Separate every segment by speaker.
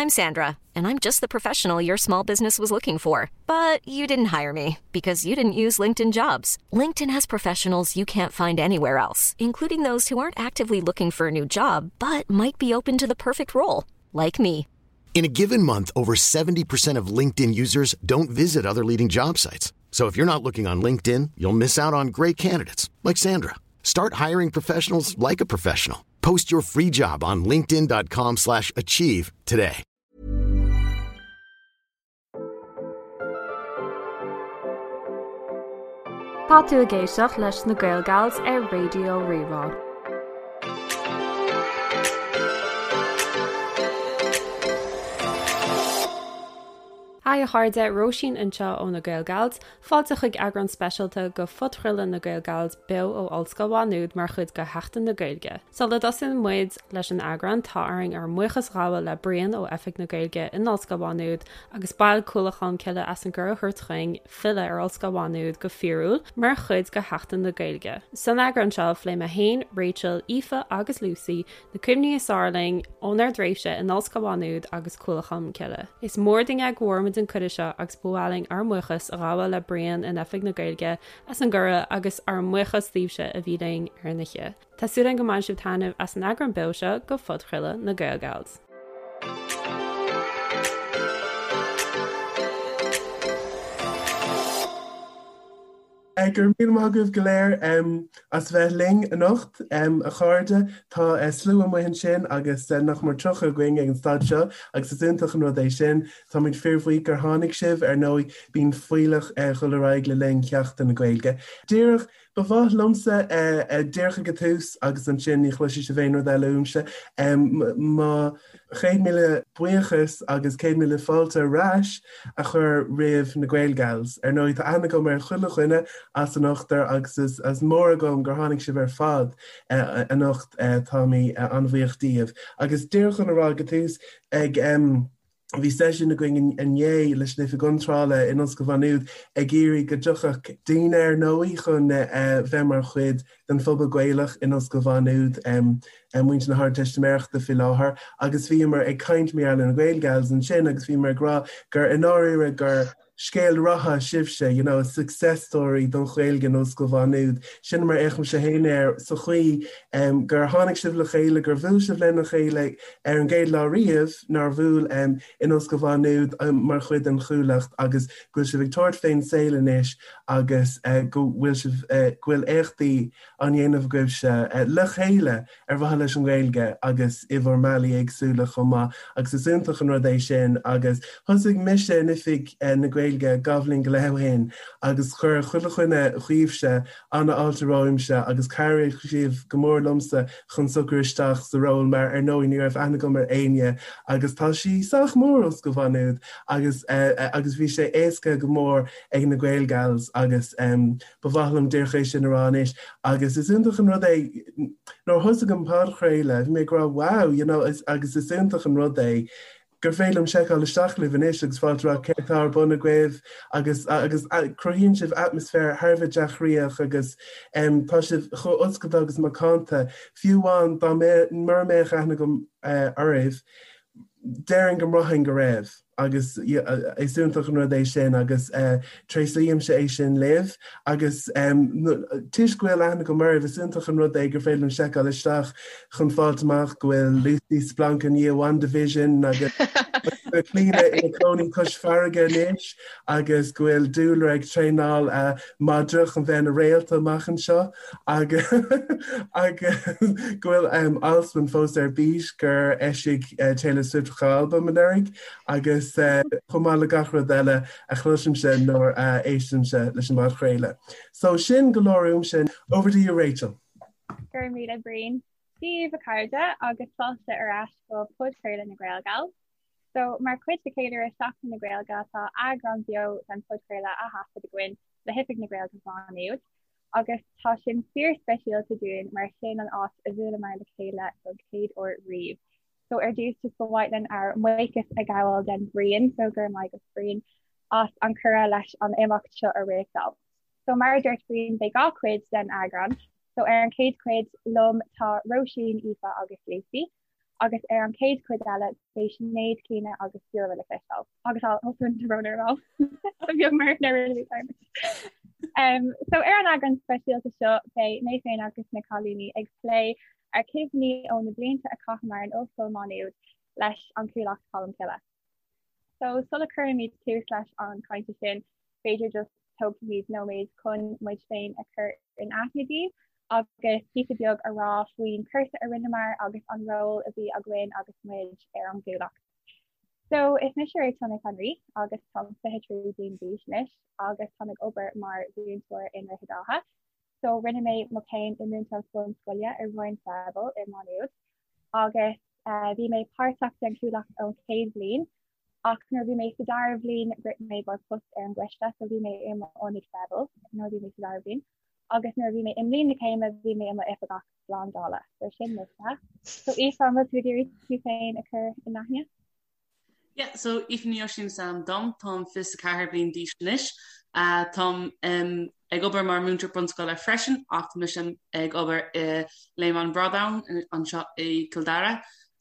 Speaker 1: I'm Sandra, and I'm just the professional your small business was looking for. But you didn't hire me because you didn't use LinkedIn jobs. LinkedIn has professionals you can't find anywhere else, including those who aren't actively looking for a new job but might be open to the perfect role, like me.
Speaker 2: In a given month, over 70% of LinkedIn users don't visit other leading job sites. So if you're not looking on LinkedIn, you'll miss out on great candidates like Sandra. Start hiring professionals like a professional. Post your free job on linkedin.com/achieve slash achieve today.
Speaker 3: Tá tú ag éisteacht leis na Gaelgals ar Raidió Rí-Rá. Haigh a chairde, Róisín anseo ó na Gaelgals, Fáilte chuig eagrán speisialta de phodchraoladh na Gaelgals beo ó Ollscoil Mhá Nuad mar chuid de Sheachtain na Gaeilge. Sula dtosaíonn muid leis an eagrán, tá orainn ár mbuíochas a ghabháil le Brian ó Oifig na Gaeilge in Ollscoil Mhá Nuad agus baill Cuallacht Cholmcille as an gcuireadh a thabhairt chugainn filleadh ar Ollscoil Mhá Nuad go fíorúil mar chuid de Sheachtain na Gaeilge. San eagrán seo, phléigh mé féin, Rachel, Aoife agus Lucy Na cuimhní is fearr linn ónár dtréimhse in Ollscoil Mhá Nuad agus Cuallacht Cholmcille. Is mór dúinn é go bhfuair muid an cuireadh seo agus ba mhaith linn ár mbuíochas a ghabháil le Brian in Oifig na Gaeilge as an gcuireadh agus ár mbuíochas daoibhse a bhí linn ar an oíche. Tá súil againn go mbainfidh sibh taitneamh as an eagrán beo seo de phodchraoladh na Gaelgals.
Speaker 4: Go raibh míle maith agaibh go léir as bheith linn anocht, a chairde. Tá slua amuigh ansin agus nach mór 30 againn ag an staid seo agus is iontach an rud é sin. Táimid fíorbhuíoch gur tháinig sibh. Ar ndóigh, bíonn fuílleach ag dul ar aghaidh le linn Sheachtain na Gaeilge. Díreach, ba mhaith liomsa, díreach ag an tús agus ansin ní chloisfidh sibh aon rud eile uaimse, mo 100,000 buíochas agus 100,000 fáilte ar ais a chur roimh na Gaelgals. Ar ndóigh, tá aithne agam ar chuile dhuine as an ochtar agus is mór agam gur tháinig sibh ar fad anocht. Táimid an-bhuíoch díobh. Agus díreach chun a rá ag an tús, ag bhí seisiún againn inné leis an Oifig Iontrála in Ollscoil Mhá Nuad ag iarraidh go dtiocfadh daoine ar ndóigh chun bheith mar chuid den phobal Gaelach in Ollscoil Mhá Nuad, muintir na hArdteistiméireachta faoi láthair, agus bhíomar ag caint mar gheall ar na Gaelgals ansin agus bhíomar ag rá gur i ndáiríre gur scéal ratha sibhse, you know, a success story don Ghaeilge in Ollscoil Mhá Nuad. Sin mar a fhéachaimse féin air sa chaoi gur tháinig sibh le chéile, gur bhuail sibh lena chéile ar an gcéad lá riamh nár bhuail in Ollscoil Mhá Nuad mar chuid den Chuallacht agus go bhfuil sibh ag tabhairt fén saol anois agus go bhfuil sibh, go bhfuil éachtaí á ndéanamh agaibhse le chéile ar mhaithe leis an nGaeilge agus i bhur mbealaí éagsúla chomh maith agus is iontach an rud é sin agus thosaigh mise in Oifig na Gaeilge dhá bhliain go leith ó shin agus chuir chuile dhuine dhaoibhse an-fháilte romhamsa agus chabhraigh sibh go mór liomsa chun socrú isteach sa ról mar ar ndóigh ní raibh aithne agam ar éinne agus tá sí sách mór Ollscoil Mhá Nuad agus agus bhí sé éasca go mór ag na Gaelgals agus ba mhaith liom díreach é sin a rá anois agus is iontach an rud é nuair a thosaigh an podchraoladh bhí mé ag rá wow you know agus is iontach an rud é gur féidir liom seiceáil isteach libh anois agus fáilt rá céard atá ar bun agaibh agus agus cruthaíonn sibh atmaisféar thar a bheith dea-chroíoch agus tá sibh chomh oscailte agus macánta fiú amháin dá mura mbeadh aithne agam oraibh déarfainn go mbraithfinn go raibh. agus is iontach an rud é sin agus tréaslaímse é sin libh agus toisc go bhfuil aithne agam oraibh is iontach an rud é gur féidir liom seiceáil isteach chun fáilt amach go bhfuil Lucy splanc i ndiaidh WandaVision agus Clíona ina cónaí cois farraige anois agus go bhfuil Dúlra ag traenáil madra chun bheith ina réalta amach anseo agus agus go bhfuil Alswyn fós ar bís gur eisigh Taylor Swift a albam anuraidh agus chomh maith le gach rud eile a chloisimse nuair a éistimse leis an bpodchraoladh. So sin go leor uaimse. Over to you Rachel.
Speaker 5: Go raibh míle Brian. Dia daoibh a chairde agus fáilte ar ais go podchraoladh na Gaelgals. So, mar chuid de cheiliúradh Seachtain na Gaeilge tá eagrán beo den phodchraoladh á thaifead againn le hOifig na Gaeilge Mhá Nuad agus tá sin fíor-speisialta dúinn mar sin an áit a bhuaileamar le chéile don chéad uair riamh. So ar dtús just ba mhaith linn ár mbuíochas a ghabháil den Bhrian, so go raibh maith agat Brian as an cuireadh leis an imeacht seo a réachtáil. So mar a dúirt Brian beidh 2 chuid den eagrán, so ar an chéad chuid liom tá Róisín, Aoife agus Lucy. Agus ar an chéad chuid eile beidh Sinéad, Clíona agus Ciara le cloisteáil. Agus also an brón ar ball. Beag mar na rinne mé dearmad. Um, so ar an eagrán speisialta seo beidh mé féin agus na cailíní ag plé ar chuimhní ó na blianta a chaitheamar in Ollscoil Mhá Nuad leis an Chuallacht Cholmcille. So sula cuirimid tús leis an cainte sin, b'fhéidir just tógfaimid nóiméad chun muid féin a chur in aithne daoibh agus píosa beag a rá faoin cúrsa a rinneamar agus an ról a bhí againn agus muid ar an gCuallacht. So is mise Rachel Nic an Rí agus táim 23 bliain d'aois anois agus táim ag obair mar mhúinteoir i nDroichead Átha. So rinne mé mo chéim i múinteoireacht bunscoile i Roinn Freibil i Má Nuad agus bhí mé páirteach den Chuallacht ón chéad bhliain ach nuair a bhí mé sa dara bhliain rith mé i gcomhair post ar an gcoiste so bhí mé i m'ionadaí Freibil nuair a bhí mé sa dara bhliain agus nuair a bhí mé i mbliain na céime bhí mé i m'oifigeach slándála. So sin mise. So Aoife, an bhfuil tú ag iarraidh tú féin a chur in aithne?
Speaker 6: Yeah, so Aoife Ní Oisín is ainm dom, táim 24 bliain d'aois anois. Uh, táim um, ag obair mar múinteoir bunscoile freisin ach tá mise ag obair i Léim an Bhradáin anseo i Cill Dara.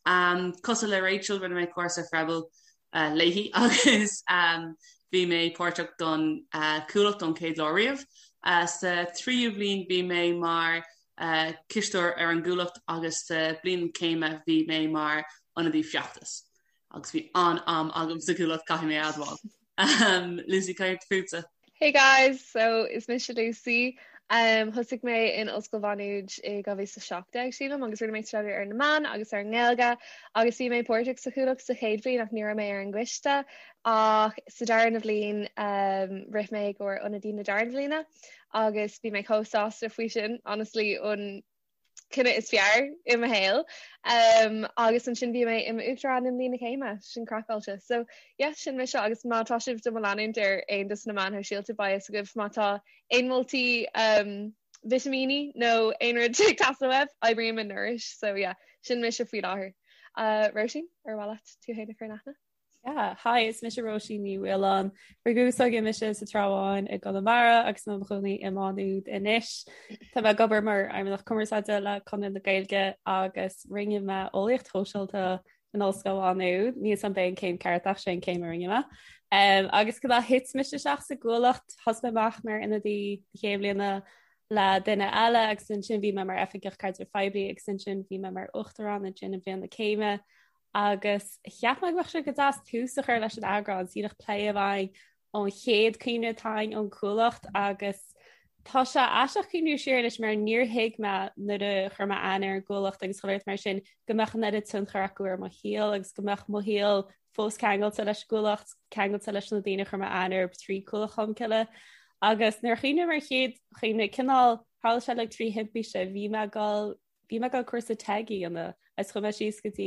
Speaker 6: Um, cosúil le Rachel rinne mé cúrsa Freibil uh, léi agus um, bhí mé páirteach don uh, Chuallacht ón chéad lá riamh. Uh, sa tríú bhliain bhí mé mar uh, cisteoir ar an gCuallacht agus sa bliain céime bhí mé mar ionadaí feachtais. Agus bhí an-am agam sa Chuallacht caithfidh mé a admháil. Um, Lucy cad fútsa.
Speaker 7: Hey guys, so is mise Lucy. Um, thosaigh mé in Ollscoil Mhá Nuad i 2017 sílim agus rinne mé staidéar ar na meáin agus ar an nGaeilge agus bhí mé páirteach sa Chuallacht sa chéad bhliain ach ní raibh mé ar an gcoiste ach sa darna bhliain um, rith mé i gcomhair ionadaí na darna bhliana agus bhí mé chomh sásta faoi sin honestly an cinneadh is fearr i mo shaol. Um, agus ansin bhí mé i m'uachtarán i mbliain na céime, sin craiceáilte. So yeah, sin mise agus má tá sibh do mo leanúint ar aon dos na meáin shóisialta beidh fhios agaibh má tá aon moltaí um, vitimíní nó aon rud ag teastáil uaibh, oibrím i Nourish, so yeah, sin mise faoi láthair. Uh, Róisín, ar mhaith leat tú féin a chur in aithne?
Speaker 3: Yeah, hi, is mise Róisín Ní Mhaoláin. Rugadh is tógadh mise sa Trá Bháin i gConamara agus i mo chónaí i Má Nuad anois. Tá mé ag obair mar Fheidhmeannach Cumarsáide le Conradh na Gaeilge agus rinne mé eolaíocht shóisialta in Ollscoil Mhá Nuad. Níl 's a'm ab é an céim ceart ach sé an céim a rinne mé. Um, agus conas a thit mise isteach sa gCuallacht, thosaigh mé amach mar ionadaí na chéad bhliana le duine eile agus ansin bhí mé mar oifigeach caidrimh phoiblí agus ansin bhí mé mar uachtarán ansin i mbliain na céime. Agus cheap mé go mbeadh sé go deas tús a chur leis an eagrán, síneach plé a bheidh ón chéad cuimhne atá againn ón Chuallacht agus tá sé aisteach cuimhniú siar anois mar níor thuig mé nuair a chuir mé aithne ar an gCuallacht agus chuile shórt mar sin go mbeadh an oiread tionchar acu ar mo shaol agus go mbeadh mo shaol fós ceangailte leis an gCuallacht, ceangailte leis na daoine a chuir mé aithne orthu trí Cuallacht Cholmcille. Agus nuair a chuimhním ar chéad chuimhne cineál tharla sé like trí thimpiste bhí mé ag dul Bhí mé ag dul cúrsa TEG a dhéanamh agus chuaigh mé síos go dtí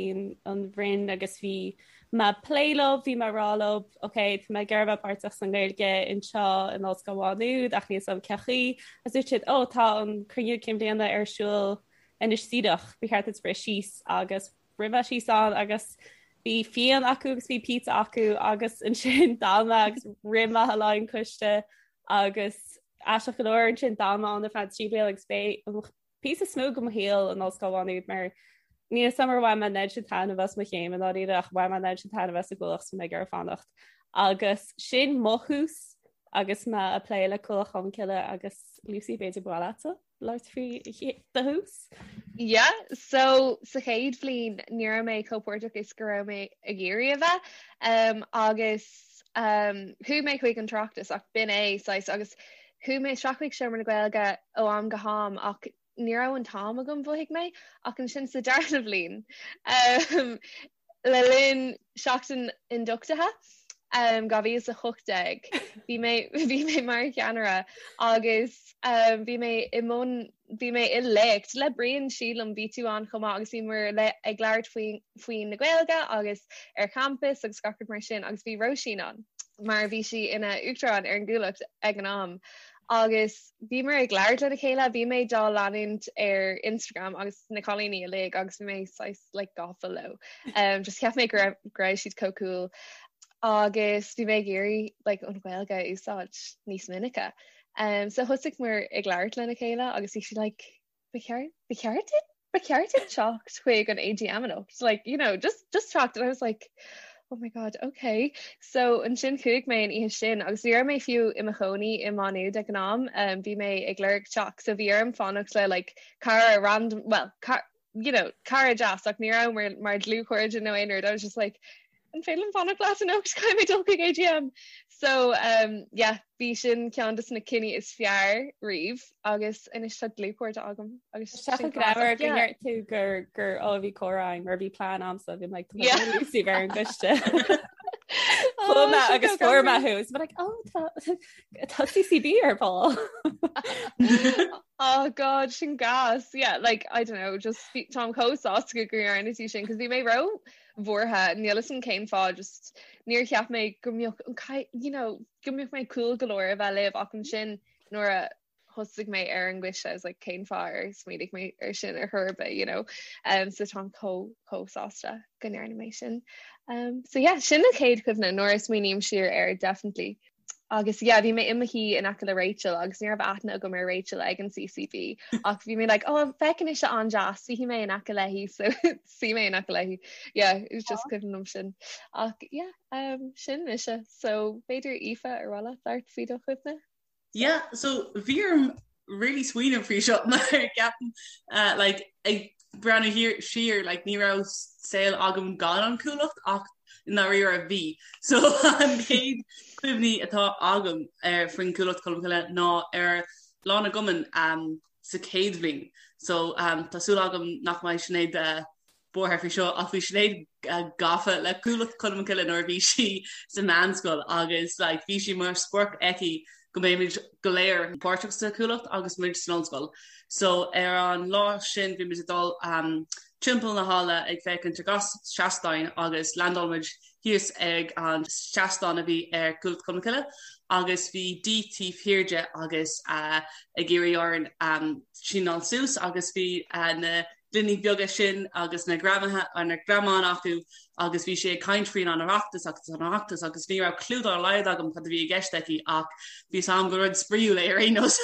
Speaker 3: an Roinn agus bhí mé ag plé leo, bhí mé ag rá leo, ok, tá mé ag iarraidh bheith páirteach sa nGaeilge anseo in Ollscoil Mhá Nuad ach níl 's a'm cén chaoi. Agus dúirt siad, ó, tá an cruinniú cinn bhliana ar siúl anois díreach, ba cheart duit rith síos agus rith mé síos ann agus bhí fíon acu agus bhí pizza acu agus ansin d'fhan mé agus rith mé le an coiste agus aisteach go leor ansin d'fhan mé ann ar feadh 3 bliana agus b'é an píosa is mó de mo shaol in Ollscoil Mhá Nuad mar níl 'fhios a'm ar bhain mé an oiread sin taitneamh as mo chéim i ndáiríre ach bhain mé an oiread sin taitneamh as an gCuallacht so mé ag iarraidh fanacht. Agus sin mo thús agus mé ag plé le Cuallacht Cholmcille agus Lucy b'fhéidir ba mhaith leatsa labhairt faoi do thús?
Speaker 7: Yeah, so sa chéad bhliain ní raibh mé chomh páirteach is go raibh mé ag iarraidh a bheith um, agus um, chuaigh mé chuig an tOireachtas ach b'in é saghas agus Chuaigh mé isteach chuig Seomra na Gaeilge ó am go ham ach ní raibh an t-am agam, mhothaigh mé, ach ansin sa darna bhliain, le linn seachtain ionduchtaithe 2018, bhí mé bhí mé mar cheannaire agus bhí mé i mbun bhí mé i léacht le Brian sílim, bhí tú ann chomh maith agus bhíomar ag labhairt faoi faoi na Gaeilge agus ar champas agus gach rud mar sin agus bhí Róisín ann mar bhí sí ina uachtarán ar an gCuallacht ag an am agus bhíomar ag labhairt lena chéile, bhí mé dá leanúint ar Instagram agus na cailíní uilig agus bhí mé saghas like gafa leo. Um, just cheap mé go raibh go raibh siad chomh cool agus bhí mé ag iarraidh like an Ghaeilge a úsáid níos minice. Um, so thosaigh muid ag labhairt lena chéile agus bhí sí like, ba cheart ba cheart duit? Ba cheart duit teacht chuig an AGM anocht like you know just just teacht and I was like oh my god okay so ansin chuaigh mé an oíche sin agus ní raibh mé fiú i mo chónaí i Má Nuad ag an am um, bhí mé ag lorg teach so bhí orm fanacht le like cara random well car, you know cara deas ach ní raibh mar mar dlúthchairde nó aon rud I was just like an féidir liom fanacht leat anocht caithfidh mé dul chuig AGM. So um, yeah, bhí sin ceann de na cinní is fearr riamh agus anois tá dlúthchairde agam
Speaker 3: agus Sé go greannmhar go ndeir tú gur gur ó bhí comhrá mar bhí plean agamsa bhí like Lucy ar an gcoiste. Chuaigh mé agus fuair mé thú is like oh tá tá CCB ar ball.
Speaker 7: Oh god sin gas yeah like I don't know just táim chomh sásta go ndearna tú sin cos bhí mé ró bhuartha níl 'fhios a'm cén fáth just níor cheap mé go mbeadh an you know go mbeadh mé cool go leor a bheith libh ach ansin nuair a thosaigh mé ar an gcoiste I was like cén fáth ar smaoinigh mé ar sin ar chor ar bith you know um, so táim chomh chomh sásta go ndearna mé sin um, so yeah sin an chéad chuimhne nuair a smaoiním siar air definitely Agus yeah, bhí mé i mo shuí in aice le Rachel agus ní raibh aithne agam ar Rachel ag an CCB ach bhí mé like, oh, feiceann ise an-deas, suífidh mé in aice léi, so suigh mé in aice léi. Yeah, it was just cuimhin liom sin. Ach yeah, um, sin mise. So b'fhéidir Aoife ar mhaith leat labhairt faoi do chuimhne?
Speaker 6: Yeah, so bhí orm really smaoineamh faoi seo mar ceapaim uh, like, ag breathnú thiar siar like, ní raibh saol agam gan an Chuallacht ach i ndáiríre bhí. So an chéad cuimhní atá agam ar faoin Chuallacht Cholmcille ná ar Lá na gCumann um, sa chéad bhliain. So um, tá súil agam nach mbeidh Sinéad uh, buartha faoi seo ach bhí Sinéad gafa le Cuallacht Cholmcille nuair a bhí sí sa mheánscoil agus like bhí sé mar sprioc aici go mbeimid go léir páirteach sa Chuallacht agus muid san ollscoil. So ar an lá sin bhí muid ag dul um, timpeall na halla ag féachaint ar gach seastán agus landáil muid thíos ag an seastán a bhí ar Cuallacht Cholmcille agus bhí Dee taobh thiar de agus uh, ag iarraidh orainn um, síneáil suas agus bhí uh, na gloiní beaga sin agus na greamaithe ar na greamáin acu agus bhí sí ag caint faoin an Oireachtas agus an Oireachtas agus ní raibh clue dá laghad agam cad a bhí i gceist aici ach bhí 'fhios a'm gur rud spraíúil é ar aon nós.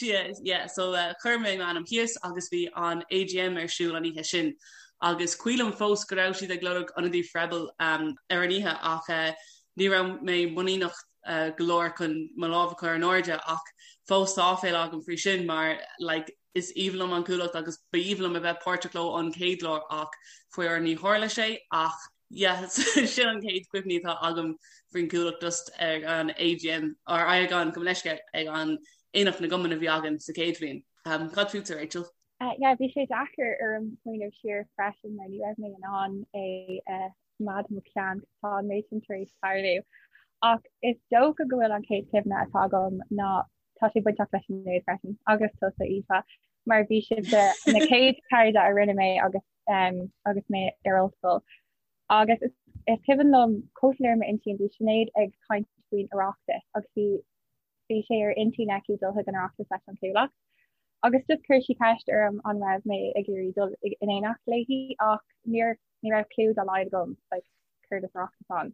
Speaker 6: Yeah, so uh, chuir mé m'ainm thíos agus bhí an AGM ar siúl an oíche sin. Agus cuimhin liom fós go raibh siad ag lorg ionadaí Freibil um, ar an oíche ach uh, ní raibh mé muiníneach uh, go leor chun mo lámh a chur in airde ach fós tá áiféala agam faoi sin mar like, Is aoibhinn liom an Chuallacht agus ba aoibhinn liom a bheith páirteach leo an chéad lá ach faraor ní tharla sé ach yeah sin an chéad chuimhní atá agam faoin Chuallacht just ag an AGM or ag an gabh mo leithscéal ag an Aonach na gCumann a bhí againn sa chéad bhliain. Um, cad fútsa Rachel?
Speaker 5: Uh, yeah, bhí sé deacair orm smaoineamh siar freisin mar ní raibh mé in ann é uh, choimeád i mo cheann tá an méid sin tar éis tarlú. Ach is dócha go bhfuil an chéad chuimhne atá agam ná tá sé bainteach leis Sinéad freisin agus tusa Aoife mar bhí sibhse na chéad cairde a rinne mé agus um, agus mé ar ollscoil. Agus is, is cuimhin liom chomh soiléir m'intinn bhí Sinéad ag caint faoin Oireachtas agus bhí bhí sé ar intinn aici dul chuig an Oireachtas leis an Chuallacht. Agus just chuir sí ceist orm an raibh mé ag iarraidh dul in éineacht léi ach níor ní raibh clue dá laghad agam like, céard is Oireachtas ann.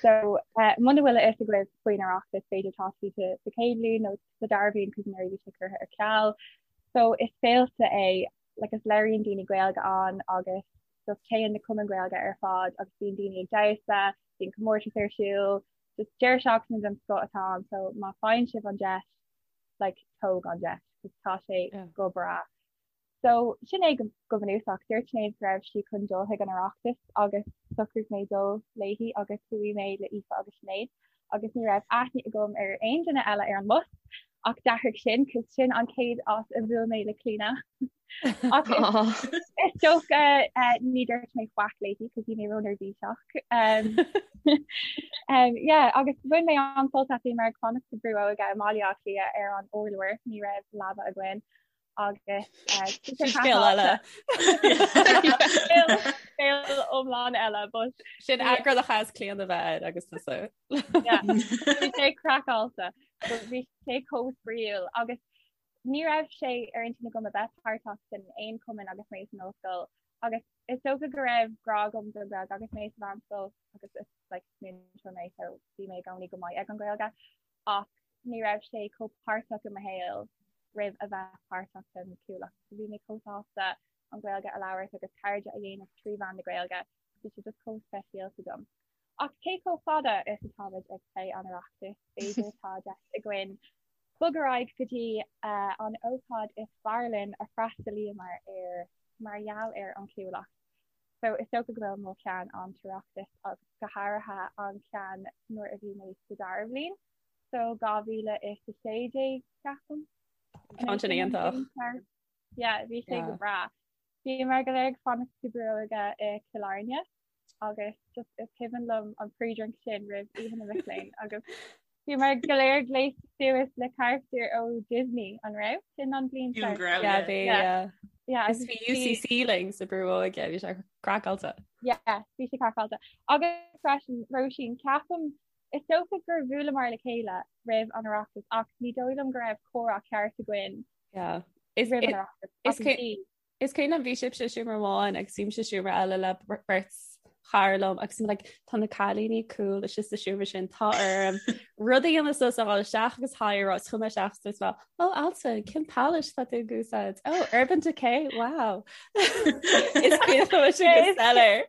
Speaker 5: So uh, muna bhfuil a fhios agaibh faoin Oireachtas b'fhéidir tá sibh sa chéad bhliain nó sa dara bhliain cos anuraidh bhí sé curtha ar ceal. So is féilte é like is labhraíonn daoine Gaeilge ann agus just téann na cumainn Gaeilge ar fad agus bíonn daoine ag damhsa, bíonn comórtas ar siúl, just deireadh seachtaine den scoth atá ann so má faigheann sibh an deis like tóg an deis cos tá sé yeah. go breá. So, sin é go bunúsach. Dúirt Sinéad go raibh sí chun dul chuig an Oireachtas agus shocraigh mé dul léi agus chuaigh mé le Aoife agus Sinéad agus ní raibh aithne agam ar aon duine eile ar an mbus ach d'athraigh sin cos sin an chéad áit a bhuail mé le Clíona. Ach is dócha ní dúirt mé faic léi cos bhí mé róneirbhíseach. Um, um, yeah, agus bhain mé an-sult as bhí mé ag fanacht sa Bhrú Óige i mBaile Átha Cliath ar an urlár, ní raibh leaba againn. agus
Speaker 3: scéal eile.
Speaker 5: Scéal iomlán eile but
Speaker 3: sin eagrán a chaithfeas Clíona a bheith air agus tusa.
Speaker 5: Bhí sé craiceáilte, bhí sé chomh spraíúil agus ní raibh sé ar intinn agam a bheith páirteach in aon chumann agus mé san ollscoil agus is dócha go raibh grá agam don Ghaeilge agus mé sa mheánscoil agus is like múinteoir mé so bhí mé i gcónaí go maith ag an Ghaeilge ach ní raibh sé chomh páirteach i mo shaol. roimh a bheith páirteach den Chuallacht. So bhí mé chomh sásta an Ghaeilge a labhairt agus cairde a dhéanamh trí mheán na Gaeilge. Bhí sé just chomh speisialta dom. Ach cé chomh fada is atáimid ag plé an Oireachtais, b'fhéidir tá deis againn bog ar aghaidh go dtí an ócáid is fearr linn a freastalaíomar air mar gheall ar an Chuallacht. So is dócha go bhfuil mo cheann an tOireachtas agus go háirithe an ceann nuair a bhí mé sa dara bhliain. So 2016 ceapaim.
Speaker 3: Ceann sin iontach.
Speaker 5: Yeah, bhí sé go breá. Bhíomar go léir ag fanacht sa Brú Óige i Cill Airne agus just is cuimhin liom an pre-drink sin roimh Oíche na Mic Léinn agus bhíomar go léir gléasta suas le carachtair ó Disney an raibh sin an bhliain
Speaker 6: seo? Yeah,
Speaker 3: bhí, yeah. Yeah, Is bhí UCC linn sa Brú Óige, bhí sé craiceáilte.
Speaker 5: Yeah, bhí sé craiceáilte. Agus freisin, Róisín, ceapaim Is dócha gur bhuaileamar le chéile roimh an Oireachtas ach ní dóigh liom go raibh comhrá ceart againn
Speaker 3: Yeah.
Speaker 5: Is roimh an Oireachtas.
Speaker 3: Is
Speaker 5: Ach bhí.
Speaker 3: Is cuimhin liom bhí sibhse i seomra amháin agus bhí mise i seomra eile le beirt chara liom agus like, tá na cailíní cool istigh sa seomra sin tá orm rud a dhéanamh suas a ghabháil isteach agus hi a rá is chuaigh mé isteach is dúirt mé oh Altan cén palette tá tú ag úsáid oh Urban Decay wow Is cuimhin liom sin go soiléir.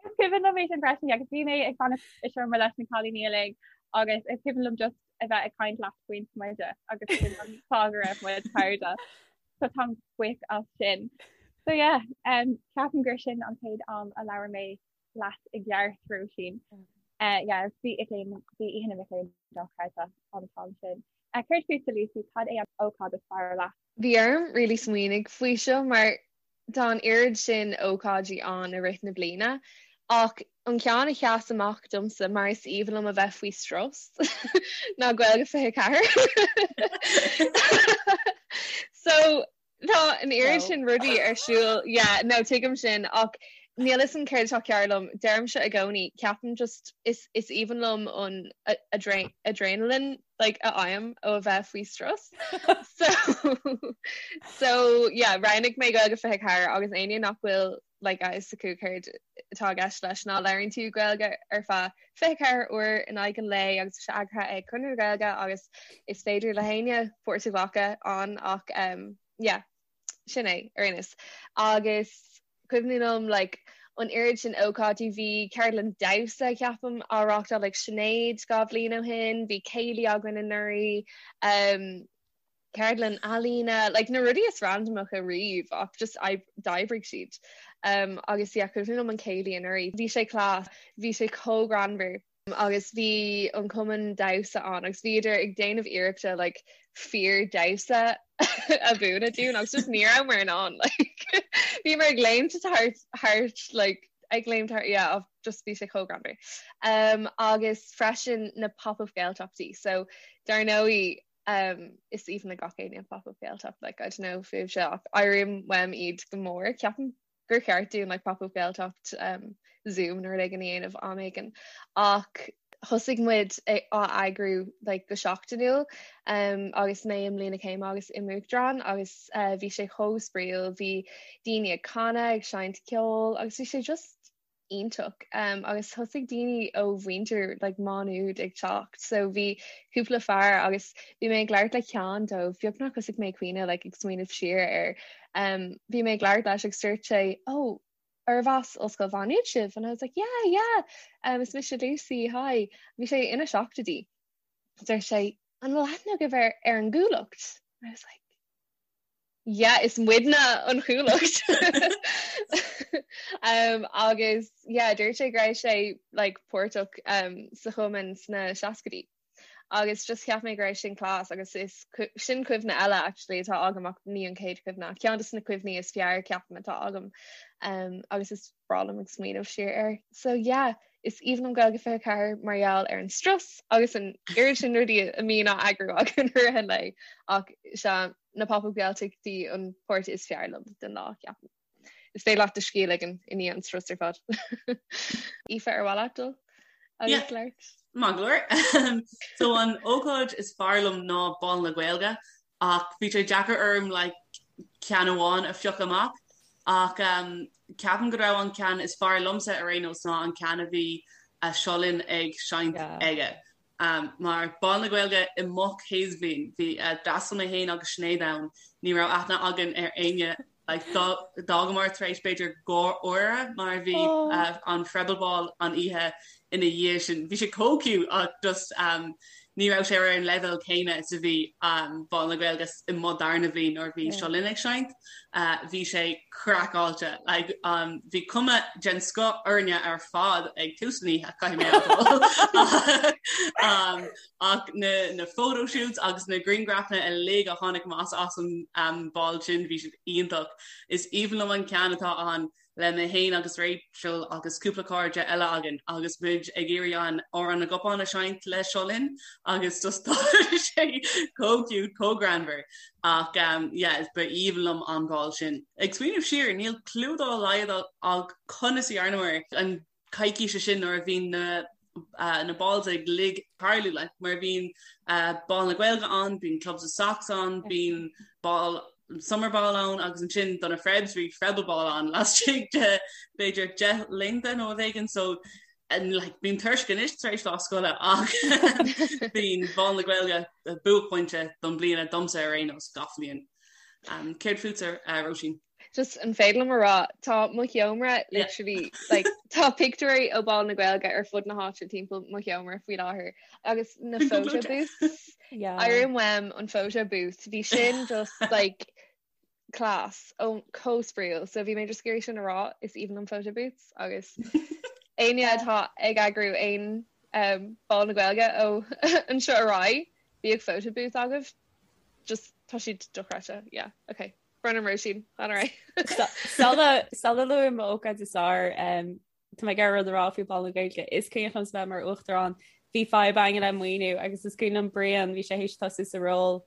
Speaker 5: Is cuimhin liom é sin freisin agus bhí mé ag fanacht i seomra leis na cailíní uilig agus is cuimhin liom just a bheith ag caint leat faoin smideadh agus sin an fáth go raibh muid cairde. So táim buíoch as sin. So yeah, um, ceapaim gur sin an chéad am a labhair mé leat i gceart Róisín. Uh, yeah, bhí bhí Oíche na Mic Léinn dochreidte an t-am sin. Uh, Céard fútsa Lucy, cad é an ócáid is fearr leat?
Speaker 7: Bhí orm really smaoineamh faoi seo mar Tá an oiread sin ócáidí ann i rith na bliana, ach an ceann a sheas amach domsa, mar is aoibhinn liom a bheith faoi strus, ná Gaeilge 24. So, tá an oiread sin rudaí ar siúl, yeah, no, tuigim sin, ach níl fhios a'm céard atá cearr liom, deirimse i gcónaí, ceapaim just, is is aoibhinn liom an adrenaline like a fhaighim ó a bheith faoi strus. So so yeah, roghnaigh mé Gaeilge 24 agus éinne nach bhfuil like a fhios acu céard atá i gceist leis ná labhraíonn tú Gaeilge ar feadh 24 uair in aghaidh an lae agus tá sé eagraithe ag Conradh na Gaeilge agus is féidir le héinne páirt a ghlacadh ann ach um, yeah, sin é ar aon nós. Agus cuimhin liom like an oiread sin ócáidí, bhí ceardlann damhsa ceapaim á reáchtáil ag Sinéad 2 bhliain ó shin, bhí céilí againn anuraidh, um, ceardlann ealaíne, like na rudaí is randamacha riamh ach just d'oibrigh siad. Um, agus yeah, cuimhin liom an céilí anuraidh, bhí sé class, bhí sé chomh greannmhar. agus bhí an cumann damhsa ann agus bhíodar ag déanamh iarrachta like fíor damhsa a mhúineadh dúinn agus just ní rabhamar in ann like bhíomar ag léimt thart thart like ag léimt thart yeah just bhí sé chomh greannmhar. Um, agus freisin na pop-up Gaeltachtaí so dar ndóigh um, is aoibhinn le gach éinne pop-up Gaeltacht like I don't know fúibhse ach airím uaim iad go mór ceapaim gur cheart dúinn like pop-up Gaeltacht um, Zoom nó rud éigin a dhéanamh am éigin ach thosaigh muid á eagrú like, go seachtainiúil um, agus mé i mbliain na céime agus i m'uachtarán agus uh, bhí sé chomh spraíúil, bhí daoine ag canadh, ag seinnt ceoil agus bhí sé just iontach um, agus thosaigh daoine ó mhuintir like, Má Nuad ag teacht so bhí cúpla fear agus bhí mé ag labhairt le ceann dóibh beagnach thosaigh mé ag caoineadh like, ag smaoineamh siar air Um, bhí mé ag labhairt leis agus dúirt sé, oh, arbh as Ollscoil Mhá Nuad sibh? And I was like, yeah, yeah, um, is mise Lucy, hi. Bhí sé ina seachtóidí. Dúirt sé, an bhfuil aithne agaibh ar, ar an gCuallacht? I was like, yeah, is muidne an Chuallacht. um, agus yeah, dúirt sé go raibh sé like, páirteach um, sa chumann sna seascaidí. Agus just cheap mé go raibh sin class agus is sin cuimhne eile actually atá agam ach ní an chéad chuimhne ach ceann de na cuimhní is fearr ceapaim atá agam um, agus is breá liom ag smaoineamh siar air. So yeah, is aoibhinn liom Gaeilge 24 mar gheall ar an strus agus an oiread sin rudaí a mbíonn á eagrú againn i rith an lae ach sea na pop-up Gaeltachtaí an páirt is fearr liom den lá ceapaim. Is féidir leat do scíth a ligean i ndiaidh an strus ar fad. Aoife ar mhaith leat dul agus labhairt?
Speaker 6: Maith go leor. So an ócáid is fearr liom ná Bál na Gaeilge ach bhí sé deacair orm like ceann amháin a phiocadh amach ach um, ceapaim go raibh an ceann is fearr liomsa ar aon nós ná an ceann a bhí Seo Linn ag seinnt aige. Mar Bál na Gaeilge i mo chéad bhliain, bhí d'fhreastail mé féin agus Sinéad ann, ní raibh aithne againn ar éinne like d'fhágamar tar éis b'fhéidir 2 uaire mar bhí an Freible Ball an oíche ina dhiaidh sin. Bhí sé chomh cute ach just ní raibh sé ar an leibhéal céanna is a bhí Bál na Gaeilge i mo darna bhliain nuair a bhí Seo Linn ag seinnt. Bhí sé craiceáilte. Like bhí cuma den scoth orainne ar fad ag tús an oíche, caithfidh mé a admháil. Ach na na photo shoots agus na grianghrafanna uilig a tháinig amach as an ball sin, bhí siad iontach. Is aoibhinn liom an ceann atá ann le mé féin agus Rachel agus cúpla cairde eile againn agus muid ag iarraidh an Amhrán na gCupán a seinnt le Seo Linn agus just tá sé chomh cute, chomh greannmhar ach um, yeah, ba aoibhinn liom an ball sin. Ag smaoineamh siar, níl clue dá laghad agam conas a dhearnamar an coicíse sin nuair a bhí na na balls uilig ag tarlú like mar bíonn Bál na Gaeilge ann, bíonn Clubs with Socks ann, bíonn ball summer ball ann agus ansin do na Frebs bhí Frebble Ball ann laistigh de b'fhéidir 10 laethanta nó rud éigin so and like bím tuirseach anois tar éis lá scoile ach bíonn Bál na Gaeilge buaicphointe don bliana domsa ar aon nós gach bliain. Um, céard fútsa uh, Róisín?
Speaker 7: Just an féidir liom a rá tá mo sheomra literally like tá pictiúirí ó Bál na Gaeilge ar fud na háite timpeall mo sheomra faoi láthair agus na photo booths Airim uaim an photo booth bhí sin just like class ó chomh spraíúil so bhí mé just ag iarraidh sin a rá is aoibhinn liom photo booths agus éinne atá ag eagrú aon um, Bál na Gaeilge ó anseo ar aghaidh bíodh photo booth agaibh just tá siad dochreidte yeah okay Brennan Róisín, fan ar
Speaker 3: aghaidh. Sula sula luaim m'ócáid is fearr, tá mé ag iarraidh rud a rá faoi Bhál na Gaeilge. Is cuimhin liom bheith mar uachtarán, bhí fadhb againn le maoiniú agus is cuimhin liom Brian, bhí sé théis tosú sa ról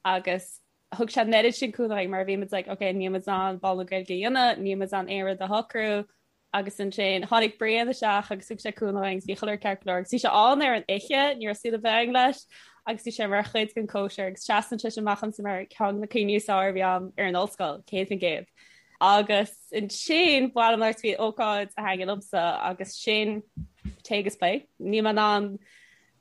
Speaker 3: agus thug sé an oiread sin cúnamh dúinn mar bhí muid like ok níl muid in ann Bál na Gaeilge a dhéanamh, níl muid in ann aon rud a shocrú, Agus ansin tháinig Brian isteach agus thug sé cúnamh dúinn agus bhí chuile rud ceart go leor agus bhí sé ann ar an oíche, ní raibh súil ar bith againn leis agus bhí sé mar chuid den cóisir agus seasann sé sin amach domsa mar ceann de na cuimhní is fearr a bhí agam ar an ollscoil, 100%. Agus ansin ba mhaith liom labhairt faoi ócáid a thaitin liomsa agus sin Tae agus Plé. Níl mé in ann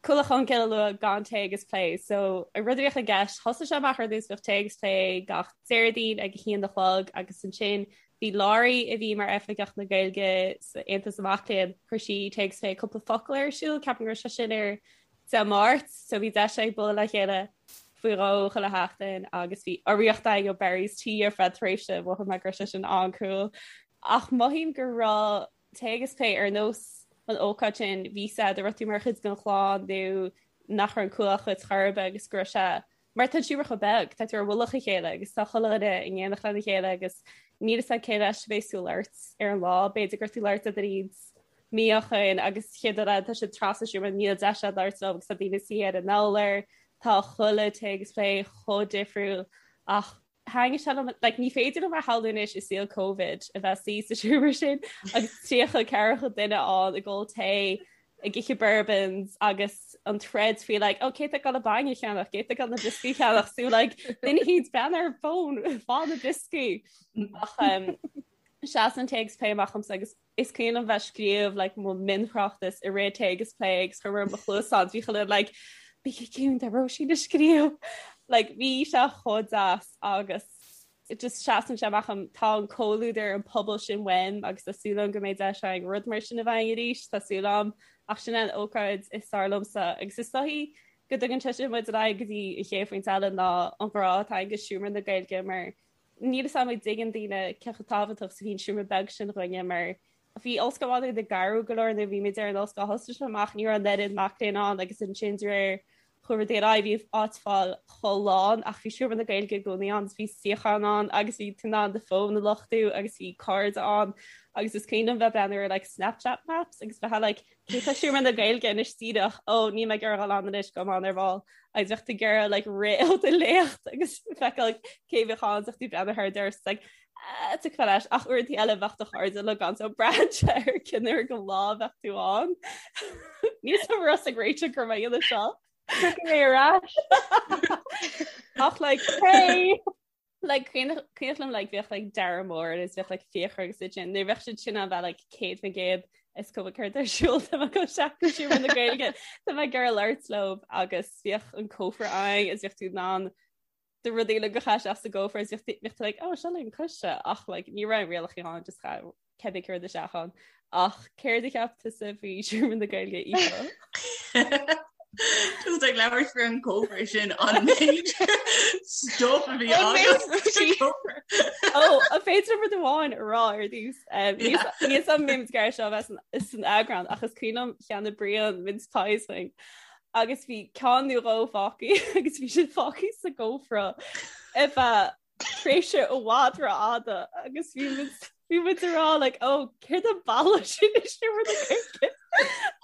Speaker 3: Cuallacht Cholmcille a lua gan Tae agus Plé. So an rud a bhíodh i gceist, thosaigh sé amach ar dtús bhíodh Tae agus Plé gach Déardaoin ag a haon a chlog agus ansin bhí Laurie a bhí mar Oifigeach na Gaeilge sa Aontas na Mac Léinn, chuir sí Tae agus Plé cúpla focal ar siúl, ceapaim go raibh sé sin ar Dé Máirt, so bhí deis ag bualadh le chéile faoi dhó chuile sheachtain agus bhí urraíocht againn ó Barry's Tea ar feadh tréimhse, mhothaigh mé go raibh sé sin an-cool. Ach mothaím go raibh Tae agus Plé ar nós an ócáid sin, bhí sé go raibh tú mar chuid den chlann nó nach raibh an Cuallacht dhuit chor ar bith agus go raibh sé mar tá an seomra chomh beag, tá tú ar mhullach a chéile agus tá chuile dhuine in éineacht lena chéile agus níl fhios a'd cé leis a bheas tú ag labhairt ar an lá, b'fhéidir go raibh tú ag labhairt le duine mí ó shin agus chéad rud eile tá siad trasna an seomra níl deis a'd labhairt leo agus tá daoine suí ar an urlár, tá chuile Tae agus Plé chomh difriúil ach Thaitnigh sé liom, like, ní féidir liom a shamhlú anois i saol Covid a bheith suí sa seomra sin agus 30 ceathracha duine ann ag ól tae, ag ithe bourbons agus an troid faoi like, oh, cé tá ag dul an bainne a cheannach, cé tá ag dul na brioscaí a cheannach, so like, duine éicint breathnaigh ar fón, fág na brioscaí. Ach um, seasann Tae agus Plé amach dhomsa agus Is cuimhin liom bheith ag scríobh like mo mhionthráchtas i rith Tae agus Plé agus chuir mé mo chluasáin bhí chuile like bígí ciúin tá Róisín ag scríobh like bhí sé chomh deas agus just seasann sé amach dhom tá an comhluadar an pobal sin uaim agus tá súil agam go mbeidh deis againn rud mar sin a bheith againn arís tá súil agam ach sin an ócáid is fearr liomsa agus is dóichí go dtugann sé sin muid ar aghaidh go dtí an chéad phointe eile ná an grá atá againn do Seomra na Gaeilge mar Níl fhios a'm an dtuigeann daoine cé chomh tábhachtach is a bhí an seomra beag sin dhúinne mar bhí Ollscoil Mhá Nuad ag athrú go leor nuair a bhí muid ar an ollscoil thosaigh sé amach ní raibh an oiread mac léinn ann agus ansin de réir chuaigh rudaí ar aghaidh bhí áit fáil chomh lán ach bhí seomra na Gaeilge i gcónaí ann bhí suíochán ann agus bhí tú in ann do fón a luchtú agus bhí cairde ann agus is cuimhin liom bheith breathnú ar like Snapchat maps agus bheith like cé tá seomra na Gaeilge anois díreach ó níl mé ag iarraidh dul ann anois gabhfaidh mé ann ar ball agus bheadh tú ag iarraidh like rith ó do léacht agus feiceáil cé bheadh ann bheadh tú breathnú thar doras like ah, tiocfaidh leis ach uaireanta eile bheadh do chairde le gan so braitheann sé ar cén uair den lá bheadh tú ann. Níl fhios agam raibh ag réiteach gur mé dhéanamh seo.
Speaker 5: Tiocfaidh mé ar ais.
Speaker 3: Ach like hey! Like cuimhin liom like bheadh like Dara Mór agus bheadh like Fiachra agus iad sin nuair bheadh siad sin ann bheadh like 100% Is cuma céard ar siúl tá mé ag dul isteach go Seomra na Gaeilge tá mé ag iarraidh labhairt leo agus bhíodh an cófra ann is bhíodh tú in ann do rudaí uilig a chur isteach sa gcófra is bhíodh tú like oh seo le an coiste ach like ní raibh rialacha ann just chaith cibé céard isteach ann ach céard a cheap tusa faoi Seomra na Gaeilge
Speaker 6: Aoife? Just ag labhairt faoi an cófra sin an méid stuff a bhí
Speaker 3: agat. Ó, an féidir liom rud amháin a rá ar dtús. Níl a fhios agam an mbeidh seo bheith san eagrán ach is cuimhin liom cheannaigh Brian mince pies dúinn agus bhí ceann nó dhó fágtha agus bhí siad fágtha sa gcófra ar feadh tréimhse i bhfad rófhada agus bhí muid bhí muid ag rá like ó céard an boladh sin i seomra na Gaeilge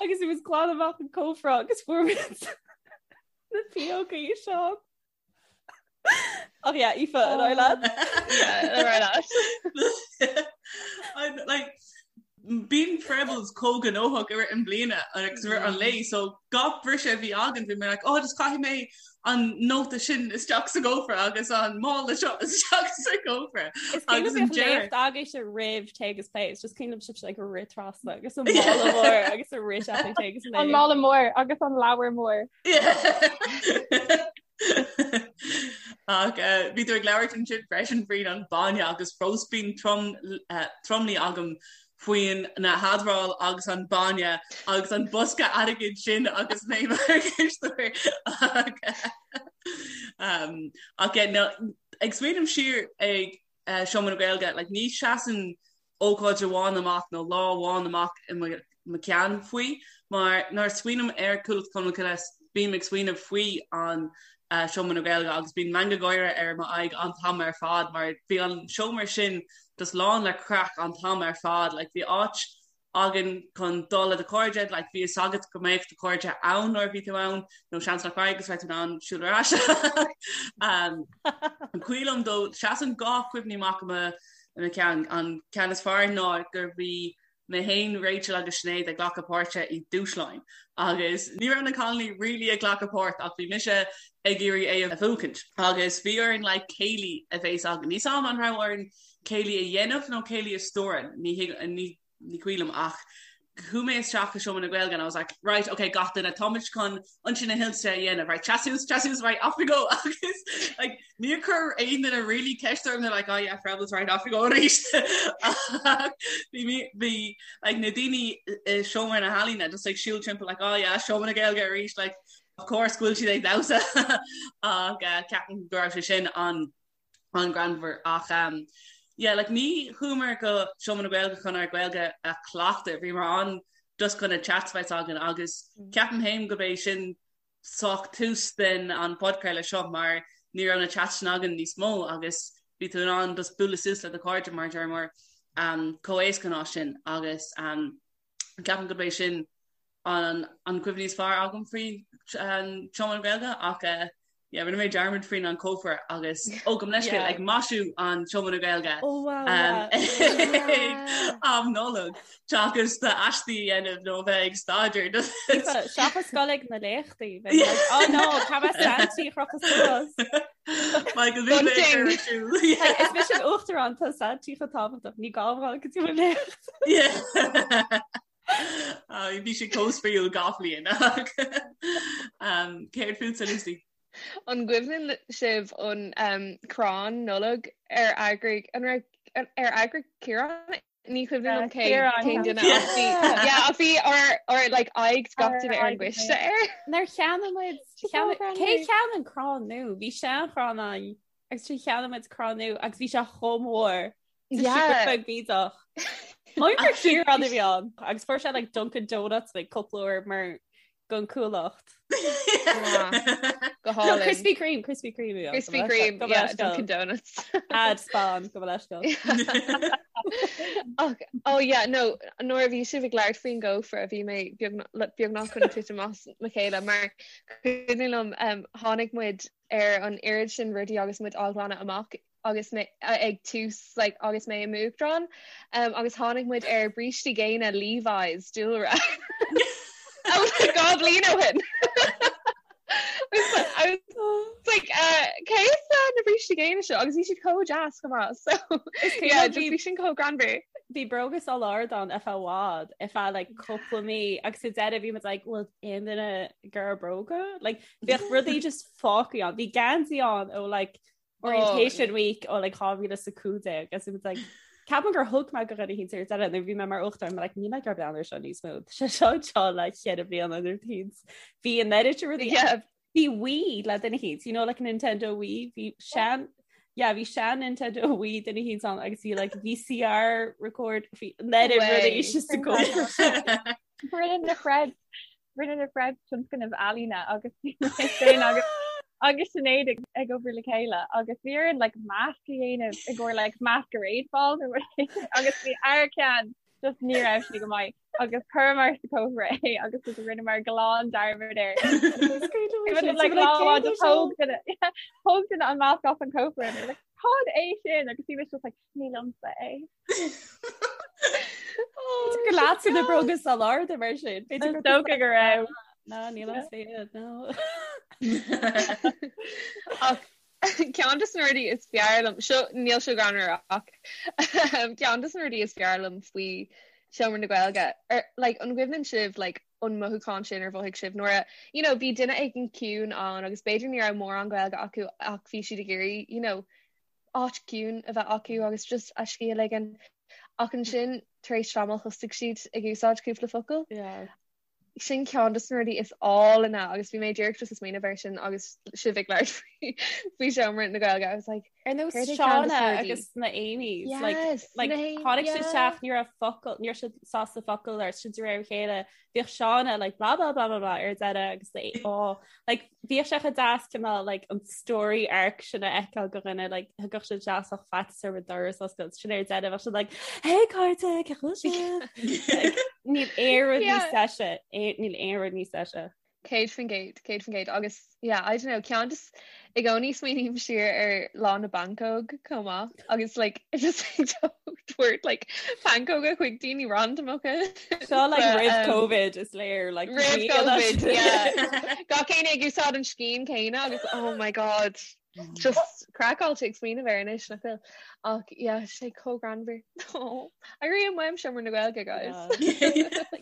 Speaker 3: agus bhí muid ag glanadh amach an cófra agus fuair muid na piógaí seo. Ach yeah, Aoife, an aghaidh leat?
Speaker 7: Yeah, an aghaidh
Speaker 6: leat. Like, bíonn Frebbles chomh gnóthach i rith an bliana agus i rith an lae so gach briseadh a bhí againn bhí mé like oh just caithfidh mé an nóta sin isteach sa gcófra agus an mála seo isteach sa gcófra.
Speaker 3: Is cuimhin liom bhíodh léacht agaibhse roimh Tae agus Plé, it's just cuimhin liom sibhse like ag rith trasna agus an mála mór agus ag rith isteach ag Tae agus Plé.
Speaker 5: An mála mór agus an leabhar mór.
Speaker 6: Ach bhí tú ag labhairt ansin freisin faoin an bainne agus fós bíonn tromluí agam faoin na hadráil agus an bainne agus an bosca airgid sin agus mé mar chisteoir ach ag smaoineamh siar ag Seomra na Gaeilge like ní seasann ócáid amháin amach nó lá amháin amach i mo cheann faoi mar nuair a smaoiním ar Chuallacht Cholmcille bím ag smaoineamh faoi an Seomra na Gaeilge agus bíonn meangadh gáire ar m'aghaidh an t-am ar fad mar bhí an seomra sin just lán le craic an t-am ar fad like bhí áit againn chun dul le do chairde, like bhí fhios agat go mbeadh do chairde ann nuair a bhí tú ann, nó seans nach raibh agus raibh tú in ann siúl ar ais. Um, is cuimhin liom dó, seasann dhá cuimhní amach i mo, i mo cheann. An ceann is fearr ná gur bhí mé féin, Rachel agus Sinéad ag glacadh páirte i dúshláin agus ní raibh na cailíní really ag glacadh páirt ach bhí mise ag iarraidh é a bhuachaint agus bhí orainn like céilí a bheas againn. Níl 's a'm an raibh orainn céilí a dhéanamh nó céilí a stiúradh, ní ní ní cuimhin liom ach chuaigh mé isteach i Seomra na Gaeilge and I was like right okay gach duine táimid chun Ionsaí na hInse a dhéanamh right seas suas seas suas right off we go agus like níor chuir aon duine really ceist orm they're like oh yeah Frebbles right off we go arís bhí mé bhí like na daoine i Seomra na hEalaíne just like siúl timpeall like oh yeah Seomra na Gaeilge arís like of course go bhfuil siad ag damhsa ach uh, ceapaim go raibh sé sin an an-ghreannmhar ach um, yeah, like, ní chuamar go Seomra na Gaeilge chun ár Gaeilge a chleachtadh, bhíomar ann just chun na chats bheith againn agus mm. ceapaim féin go b'é sin sách tús den an podchraoladh seo mar ní raibh na chats sin againn níos mó agus bhí tú in ann just bualadh suas le do chairde mar deir mar um, chomh éasca ná sin agus um, ceapaim go b'é sin an an cuimhní is fearr agam faoi an Seomra na Gaeilge ach eh, yeah, rinne mé dearmad faoin an cófra agus ó gabh mo leithscéal ag maisiú an Seomra na Gaeilge
Speaker 3: Oh wow, um,
Speaker 6: yeah. am Nollag seachas d'aistí a dhéanamh nó bheith ag staidéar.
Speaker 3: Seachas dul ag na léachtaí bheith like, oh no, cá mbeidh Santy a chrochadh suas.
Speaker 6: Michael bhí mé
Speaker 3: Bunting.
Speaker 6: ar siúl.
Speaker 3: Hey, Is mise an uachtarán tá Santy chomh tábhachtach ní gá dom go dtí mo léacht.
Speaker 6: Yeah. Bhí sé chomh spraíúil gach bliain. Céard fútsa Lucy?
Speaker 7: An gcuimhneann sibh an um, crann Nollag ar eagraigh an raibh ar eagraigh Ciarán? Ní cuimhin liom cé cén duine ach bhí yeah, ach bhí ár ár like aghaidh gach duine ar an gcoiste air.
Speaker 3: Nár cheannaigh muid cé cheannaigh an crann nua? Bhí seanchrann ann agus sin cheannaigh muid crann nua agus bhí sé chomh mór. Yeah. Beag bídeach. Mar gur Ciarán a bhí ann agus fuair sé like Dunkin Donuts like cúpla uair mar gon Cuallacht.
Speaker 7: Go hálainn.
Speaker 3: Krispy Kreme, Krispy Kreme. a bhí ann.
Speaker 7: Krispy Kreme, yeah, Dunkin Donuts.
Speaker 3: Ad spam gabh mo leithscéal.
Speaker 7: Ach, oh yeah, no, nuair a bhí sibh ag labhairt faoin gcófra bhí mé beagnach chun titim as mo chéile mar cuimhin liom um, tháinig muid ar an oiread sin rudaí agus muid á ghlanadh amach agus mé ag tús like, agus mé i m'uachtarán um, agus tháinig muid ar brístí géine Levi's dúlra. Dhá bhliain ó shin. I was like, uh, cé as uh, na brístí géine seo agus bhí siad chomh deas chomh maith so yeah, just bhí sin chomh greannmhar.
Speaker 3: Bhí bróga sál ard ann ar feadh i bhfad, ar feadh like cúpla mí agus sa deireadh bhí muid like bhfuil aon duine ag iarraidh bróga? Like bhíodh rudaí just fágtha ann. Bhí geansaí ann ó like orientation week ó like 2015 agus bhí muid like ceapaim gur thug mé go dhuine eicínt ar deireadh nuair bhí mé mar uachtarán like níl mé ag iarraidh breathnú air seo níos mó. Tá sé seo anseo le ceithre bliana nó thíos. Bhí an oiread sin rudaí
Speaker 7: Yeah.
Speaker 3: Bhí Wii le duine eicínt, you know like Nintendo Wii, bhí sean yeah, bhí sean Nintendo Wii duine eicínt ann agus bhí like VCR record bhí an oiread rudaí just sa gcófra.
Speaker 5: Rinne na Fred rinne na Fred tionscnamh ealaíne agus bhí mé féin agus agus Sinéad ag ag obair le chéile agus bhí orainn like masc a dhéanamh i gcomhair like masquerade ball nó rud éigin agus bhí ár ceann just ní raibh sé go maith agus chuireamar sa cófra é agus just rinneamar glan dearmad air. Like lá amháin just thóg duine thóg duine an masc as an cófra and like cad é sin agus bhí mise just like ní liomsa é.
Speaker 3: Gur leatsa na bróga sál arda mar sin.
Speaker 5: Is dócha go raibh.
Speaker 3: No, ní liomsa iad, no.
Speaker 7: Ach Ceann de na rudaí is fearr liom, seo níl seo greannmhar ach ceann de na rudaí is fearr liom faoi Seomra na Gaeilge, ar like an gcuimhneann sibh like an mothúchán sin ar mhothaigh sibh nuair a you know bhí duine éigin ciúin ann agus b'fhéidir ní raibh mórán Gaeilge acu ach bhí siad ag iarraidh you know áit ciúin a bheith acu agus just a scíth a ligean ach ansin tar éis tamaill thosaigh siad ag úsáid cúpla focal.
Speaker 3: Yeah.
Speaker 7: Sin ceann de na rudaí is álainne agus bhí mé díreach just ag smaoineamh air sin agus sibh ag labhairt faoi faoi Seomra na Gaeilge. I was like,
Speaker 3: Ar nós
Speaker 7: céard é ceann de
Speaker 3: Shauna
Speaker 7: na rudaí?
Speaker 3: agus na Amy's like
Speaker 7: Yes,
Speaker 3: like
Speaker 7: na hAmy,
Speaker 3: tháinig siad
Speaker 7: yeah.
Speaker 3: isteach ní raibh focal ní raibh siad sásta focal ar sin de réir a chéile bhíodh Shauna like blah blah blah blah blah ar deireadh agus the oh like bhíodh sé chomh deas cineál like an story arc sin a fheiceáil go dhuine like thigeadh siad isteach ach faitíos orthu doras a oscailt sin ar deireadh bheadh siad like hey cairde cén chaoi a bhfuil sibh Like, níl aon rud níos
Speaker 7: Yeah.
Speaker 3: deise níl aon rud níos deise.
Speaker 7: 100%, 100% agus yeah, I don't know, ceann just i gcónaí smaoiním siar ar lá na bpancóg chomh maith agus like just tabhairt like pancóga chuig daoine randamacha.
Speaker 3: Seo like
Speaker 7: But,
Speaker 3: roimh
Speaker 7: um,
Speaker 3: COVID is léir like
Speaker 7: Roimh
Speaker 3: ní fhada
Speaker 7: COVID,
Speaker 3: sin.
Speaker 7: yeah. Gach éinne ag úsáid an scian céanna agus oh my god, just craiceáilte ag smaoineamh air anois nach bhfuil. Ach yeah, sé chomh greannmhar. Oh, airím uaim Seomra na Gaeilge, guys.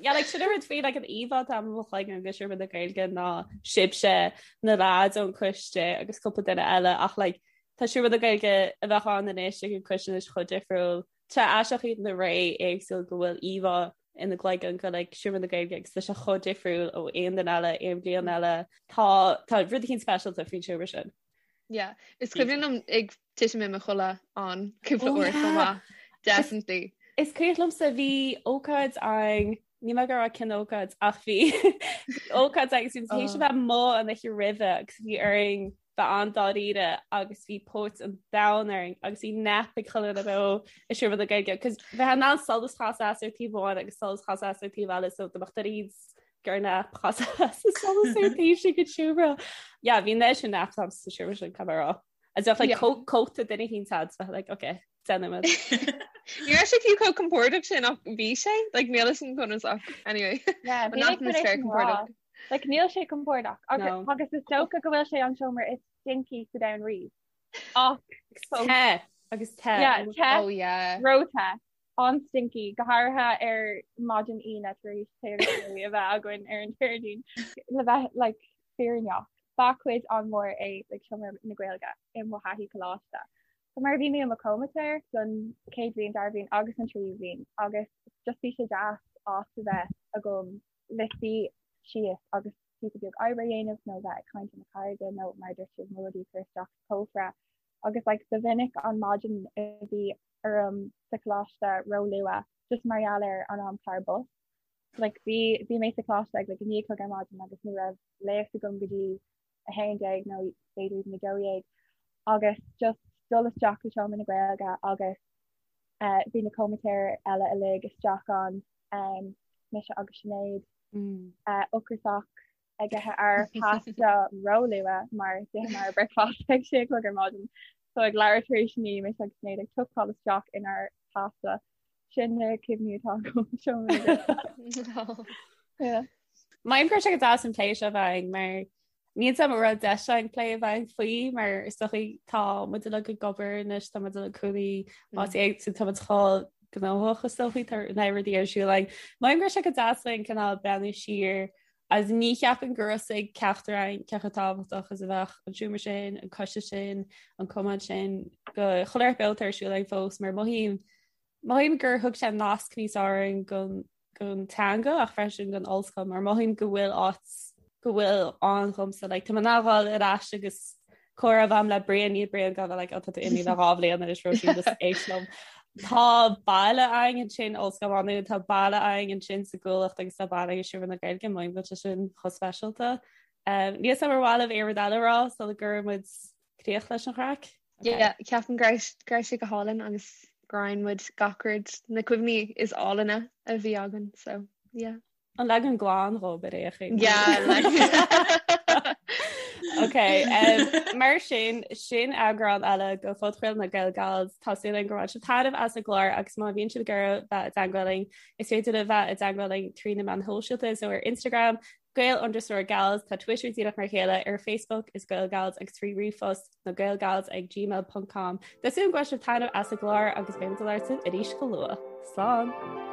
Speaker 3: Yeah, like sin an rud faoi like an íomhá atá i mo chloigeann de Seomra na Gaeilge ná sibhse na lads ón coiste agus cúpla duine eile ach like tá Seomra na Gaeilge a bheadh ann anois ag an coiste anois chomh difriúil. Tá aisteach iad na ré éagsúil go bhfuil íomhá ina gcloigeann go like Seomra na Gaeilge agus tá sé chomh difriúil ó aon duine eile, aon bhliain eile. Tá tá rud eicínt speisialta faoin seomra sin.
Speaker 7: Yeah. Is cuimhin liom ag titim i mo chodladh ann cúpla
Speaker 3: Oh,
Speaker 7: uair chomh
Speaker 3: yeah.
Speaker 7: maith. Definitely.
Speaker 3: Is cuimhin liomsa bhí ócáid ann níl mé ag rá cén ócáid ach bhí ócáid agus bhí théis a bheith amuigh an oíche roimhe agus bhí orainn bheith an-dáiríre agus bhí póit an domhain orainn agus bhí nap ag chuile dhuine beo i Seomra na Gaeilge cos bheith in ann solas chas as ar taobh amháin agus solas chas as ar taobh eile so do mbeadh duine gur nap chas as solas ar taobh sin den seomra. Yeah, bhí an sin nap sa seomra sin caithfidh mé a rá. As bheadh like
Speaker 7: Yeah.
Speaker 3: cóta duine eicínt a'd bheith like okay déanaimid.
Speaker 7: Ní raibh sé fiú chomh compordach sin ach bhí sé like níl a fhios agam conas ach anyway.
Speaker 5: Yeah,
Speaker 7: An
Speaker 5: bhí mé chun é
Speaker 7: atmaisféar
Speaker 5: sin a rá.
Speaker 7: compordach.
Speaker 5: Like níl sé compordach agus
Speaker 3: No.
Speaker 5: agus is dócha go bhfuil sé an seomra is stinky sa domhan riamh. Ach fós.
Speaker 3: Te agus te.
Speaker 5: Yeah, te,
Speaker 7: Oh yeah.
Speaker 5: ró-the, an-stinky, go háirithe ar maidin Aoine tar éis tae agus rudaí a bheith againn ar an Déardaoin. Le bheith like fírinneach, ba chuid an-mhór é like seomra na Gaeilge i mo thaithí coláiste. So mar bhí mé i mo chomaitéir don chéad bhliain, dara bhliain agus an tríú bhliain agus just bhí sé deas áit a bheith agam le suí síos agus píosa beag oibre a dhéanamh nó bheith ag caint le mo chairde nó mar a dúirt sibh mo rudaí a chur isteach sa chófra agus like ba mhinic an maidin a bhí orm sa choláiste ró-luath just mar gheall ar an amchlár bus. Like bhí bhí mé sa choláiste ag like 9 a chlog ar maidin agus ní raibh léacht agam go dtí 11 nó b'fhéidir even 12 agus just dul isteach go Seomra na Gaeilge agus eh, bhí na comaitéir eile uilig isteach ann, um, mise agus Sinéad,
Speaker 3: Mm.
Speaker 5: eh, ocrasach ag ithe ár pasta róluath mar d'itheamar bricfeasta ag sé a chlog ar maidin. So ag leathuair tar éis 9 mise agus Sinéad ag tucáil isteach inár pasta. Sin na cuimhní atá agam Seomra na Gaeilge. Yeah.
Speaker 3: Maím go raibh sé go deas an plé seo a bheith againn mar níl a fhios agam an raibh deis againn plé a bheith againn faoi mar is dócha tá muid uilig ag obair anois tá muid uilig cónaí áit éagsúil tá muid chomh gnóthach is dóichí tá na rudaí ar siúl againn. Mothaím go raibh sé go deas linn cineál breathnú siar agus ní cheapaim gur raibh a fhios ag ceachtar againn cé chomh tábhachtach is a bheadh an seomra sin, an coiste sin, an cumann sin go chuile shórt beo atá ar siúl againn fós mar mothaím mothaím gur thug sé nasc níos fearr orainn gon gon teanga ach freisin gon ollscoil mar mothaím go bhfuil áit go bhfuil ann dhomsa like tá mé in ann a ghabháil ar ais agus comhrá a bheith agam le Brian níl Brian gan bheith like oh tá tú imithe le dhá bhliain anois Róisín just éist liom. Tá baile againn ansin Ollscoil Mhá Nuad tá baile againn ansin sa gCuallacht agus tá baile againn i Seomra na Gaeilge mothaím go bhfuil sé sin chomh speisialta. Um, níl a fhios agam ar mhaith libh aon rud eile a rá sula gcuireann muid críoch leis an chraic?
Speaker 7: Yeah, ceapaim go raibh go raibh sé go hálainn agus gur roinn muid gach rud na cuimhní is álainne a bhí againn so yeah.
Speaker 3: An leagan glan dhób ar aon chaoi.
Speaker 7: Yeah, like.
Speaker 3: Ok, um, mar sin sin eagrán eile de phodchraoladh na GaelGals Tá súil againn gur bhain sibh taitneamh as an gclár agus má bhíonn sibh ag iarraidh bheith i dteagmháil linn is féidir libh bheith i dteagmháil linn trí na meáin shóisialta so ar Instagram Gael underscore Gals, tá Twitter díreach mar a chéile, ar Facebook is Gael Gals agus trí ríomhphost na Gaelgals ag gmail ponc com. Tá súil agam go bhain sibh taitneamh as an gclár agus beidh muid ag labhairt libh arís go luath. Slán!